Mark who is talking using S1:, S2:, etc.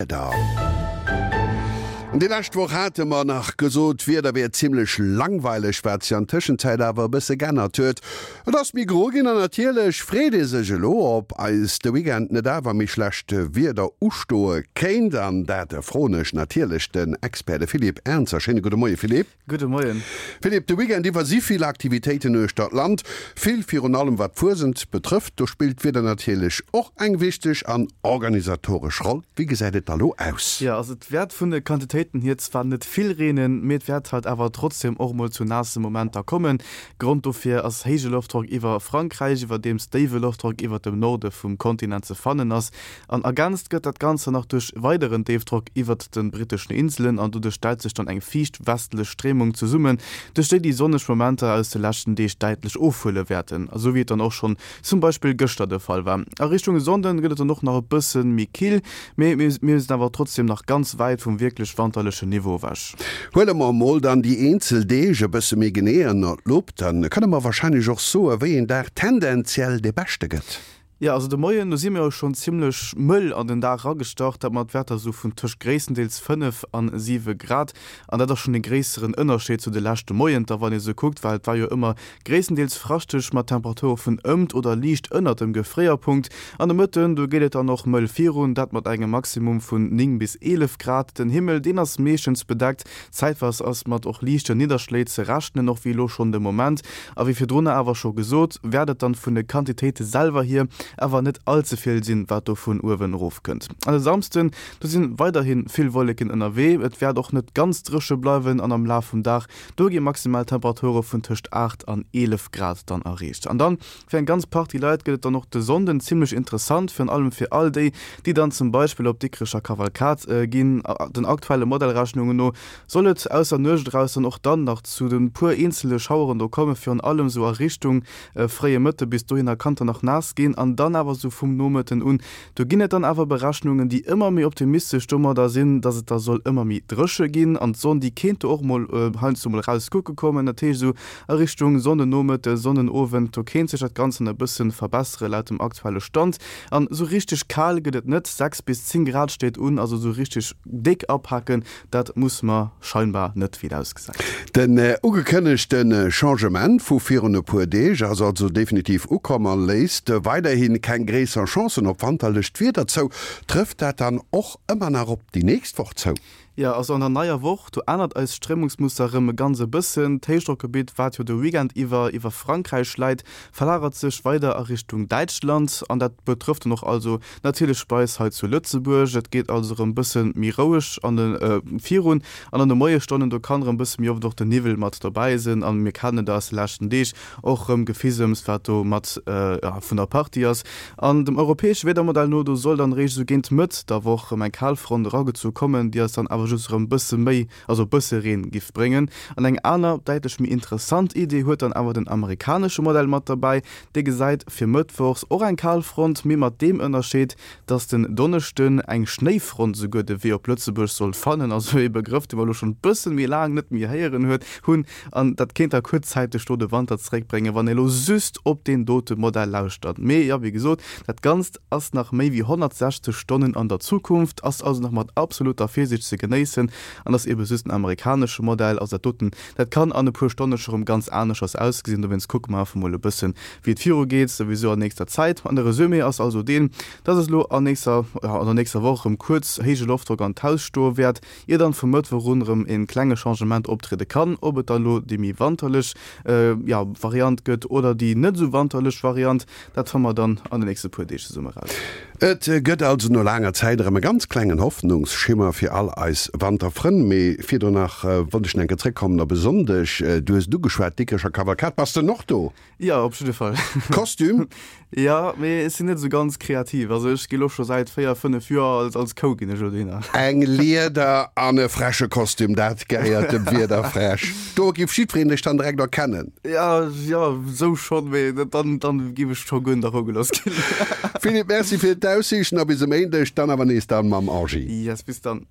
S1: Wieder. Déi lescht Woch hate mer nach gesot, d'Wieder wier zimmlech langweileg, wat sech an Tëschenzäit awer e bësse g'ännert huet. Et ass méi gro ginn an natierlech freet ee sech elo, ob eis de Weekend net awer méi schlecht Wieder ustoe kéint. An dat froen ech natierlech den Expert, de Philippe Ernzer. Schéine gudde Moie Philippe.
S2: Gudde Moien.
S1: Philippe, de Weekend iwwer si vill Aktivitéiten uechter d'Land. Vill, virun allem wat d'Fuesent betrëfft. Do spillt d'Wieder natierlech och eng wichteg an organisatoresch Roll. Wéi gesäit et da lo aus?
S2: Jo, also et wäert vun de Quantitéiten hier zwar net vill reenen, mee et wäert halt awer trotzdem och mol zu naasse Momenter kommen. Grond dofir ass héije Loftdrock iwwer Frankräich, iwwerdeems déiwe Loftdrock iwwert dem Norde vum Kontinent ze fannen ass. An ergänzt gëtt dat Ganze nach duerch weideren Déifdrock iwwert de britteschen Inselen an doduerch stellt sech dann eng fiicht westlech Stréimung zesummen, duerch déi déi sonneg Momenter aus de leschten Deeg däitlech ofhuele wäerten, esou wéi et dann och schonn zum Beispill gëschter de Fall war. A Richtung Sonnden gëtt et dann och nach e bësse méi kill, mee mir sinn awer trotzdeem nach ganz wäit vum wierklech wanterlechen Niveau ewech.
S1: Huele mer emol dann déi eenzel Deeg e bësse méi genee ënner d'Lupp, dann kënne mer warscheinlech och soe wéi een Dag tendenziell dee beschte gëtt.
S2: Jo, also de Moien, do si mir jo schonn zimmlech mëll an den Dag eragestart, dat mat Wäerter esou vun tëscht gréisstendeels 5 an 7 Grad. An dat ass schonn e gréisseren Ënnerscheed zu de leschte Moienter, wann ee sou kuckt, well et war jo ëmmer gréisstendeels fraschteg mat Temperature vun ëmt oder liicht ënnert dem Gefréierpunkt. An de Mëtten, do geet et dann och mëll virun, dat mat engem Maximum vun 9 bis 11 Grad. Den Himmel, deen ass meeschtens bedeckt, zäitweis ass mat och liichten Nidderschléi ze rechnen, och wéi elo schonn de Moment. A wéi virdrunner awer scho gesot, wäert et dann vun de Quantitéite selwer hier awer net all ze vill sinn, wat do vun uewen erof kënnt. An e Samsden, do si weiderhi vill Wolleken ënnerwee, et wäert och net ganz dréche bleiwen an am Laf vum Dag, do gi maximal Temperature vun tëscht 8 an 11 Grad dann erreecht. An dann fir eng ganz Partie Leit gëtt et dann och de Sonnden zimmlech interessant, virun allem fir all déi, déi dann zum Beispill op d'Dikrecher Kavalkad ginn. Den aktuelle Modellrechnungen no Soll et aus der Nuecht eraus dann och dann nach zu de puer eenzele Schaueren do kommen, virun allem sou a Richtung fréie Mëtte, bis dohinner kann et dann nach naass ginn an dann awer sou vum Nomëtten un, do ginn et dann awer Berechnungen, déi ëmmer méi optimistesch domadder sinn, dass et da soll ëmmer méi dréche ginn an d'Sonn, déi kéint do och mol heiansdo mol raus kucke kommen. Dat heescht esou a Richtung Sonnennomëtte, Sonnenowend, do kéint sech dat Ganzt dann e bësse verbessere laut dem aktuelle Stand. An esou richteg kal gëtt et net, 6 bis 10 Grad steet un, also esou richteg déck apaken Dat muss mer scheinbar net, wéi et ausgesäit.
S1: Den ugekënnegte Changement vu virun e puer Deeg ass also definitiv ukomm a léisst weiderhi keng gréisser Chancen op wanterlecht Wieder zou. Trëfft dat dann och ëmmer nach op déi nächst Woch zou?
S2: Jo, also an der neier Woch, do ännert eist Stréimungsmuster erëm e ganz e bëssen. D'Héichdrockgebitt, wat jo de Weekend iwwer iwwer Frankräich läit, verlagert sech weider a Richtung Däitschland an dat betrëfft dann och also Natierlech bei eis hei zu Lëtzebuerg. Et geet also erëm bësse méi roueg an de virun an an de Moiesstonnen. Do kann erëm bësse méi oft och den Niwwel mat dobäi sinn an mir kennen et aus de leschten Deeg och erëm Gefisems wat do mat vun der Partie ass. An dem europäesche Wiedermodell no, do soll dann eréischt esou géint Mëtt der Woch erëm eng Kalfront eragezu kommen, déi eis dann awer just erëm bësse méi, also bësse Reen giff bréngen. An eng aner, däitlech méi interessant Idee huet dann awer den amerikanesche Modell mat derbäi. Dee gesäit fir mëttwochs och eng Kalfront, mee mat deem Ënnerscheed, dass den Donneschden eng Schnéifront esouguer de Wee op Lëtzebuerg soll fannen, also ee Begrëff, dee mer elo schonn e bësse méi laang net méi héieren huet hunn. An dat kéint da kuerzzäiteg do de Wanter zeréckbréngen, wann ee elo just op deen dote Modell lauschtert. Mee jo, wéi gesot, dat Ganzt ass nach méi wéi 160 Stonnen an der Zukunft, ass also nach mat absoluter Virsiicht ze genéissen an ass ebe just en amerikanesche Modell. Also dat doten Dat kann an e puer Stonne scho rëm ganz aneschters ausgesinn, dowéinst kucke mer einfach mol e bëssen, wéi et viru geet, souwisou an nächster Zäit. An de Resumé ass also deen, dass es elo an nächster, jo an der nächster Woch rëm kuerz héije Loftdrock an d'Haus stoe wäert, ier dann vum Mëttwoch un rëm e klenge Changement optriede kann. Ob et dann elo déi méi wanterlech, jo, Variant gëtt oder déi net esou wanterlech Variant, dat fanne mer dann an de nächste puer Deeg zesumme raus.
S1: Et gëtt also no laanger Zäit erëm e ganz klengen Hoffnungsschimmer fir all eis Wanterfrënn. Mee virdrun nach wollt ech nach eng Kéier zréckkommen op e Sonndeg. Du hues et ugeschwat, d'Dikrecher Kavalkad. Bass de och do?
S2: Jo, op jidde Fall.
S1: Kostüm?
S2: Jo, mee ech sinn net esou ganz kreativ. Also ech gi lo scho säit 4, 5 Joer als als Kou ginn ech elo dohinner.
S1: Eng Lieder an e freche Kostüm, dat gehéiert dem Wiederfräsch. Do giff jiddwereen dech dann direkt erkennen.
S2: Ja, jo, sou schonn, mee dann, dann giff ech scho guer net erogelooss ginn.
S1: Philippe, Merci fir d'Aussiichten a bis e Méindeg, dann awer nees dann mam Angie.
S2: Yes, bis dann.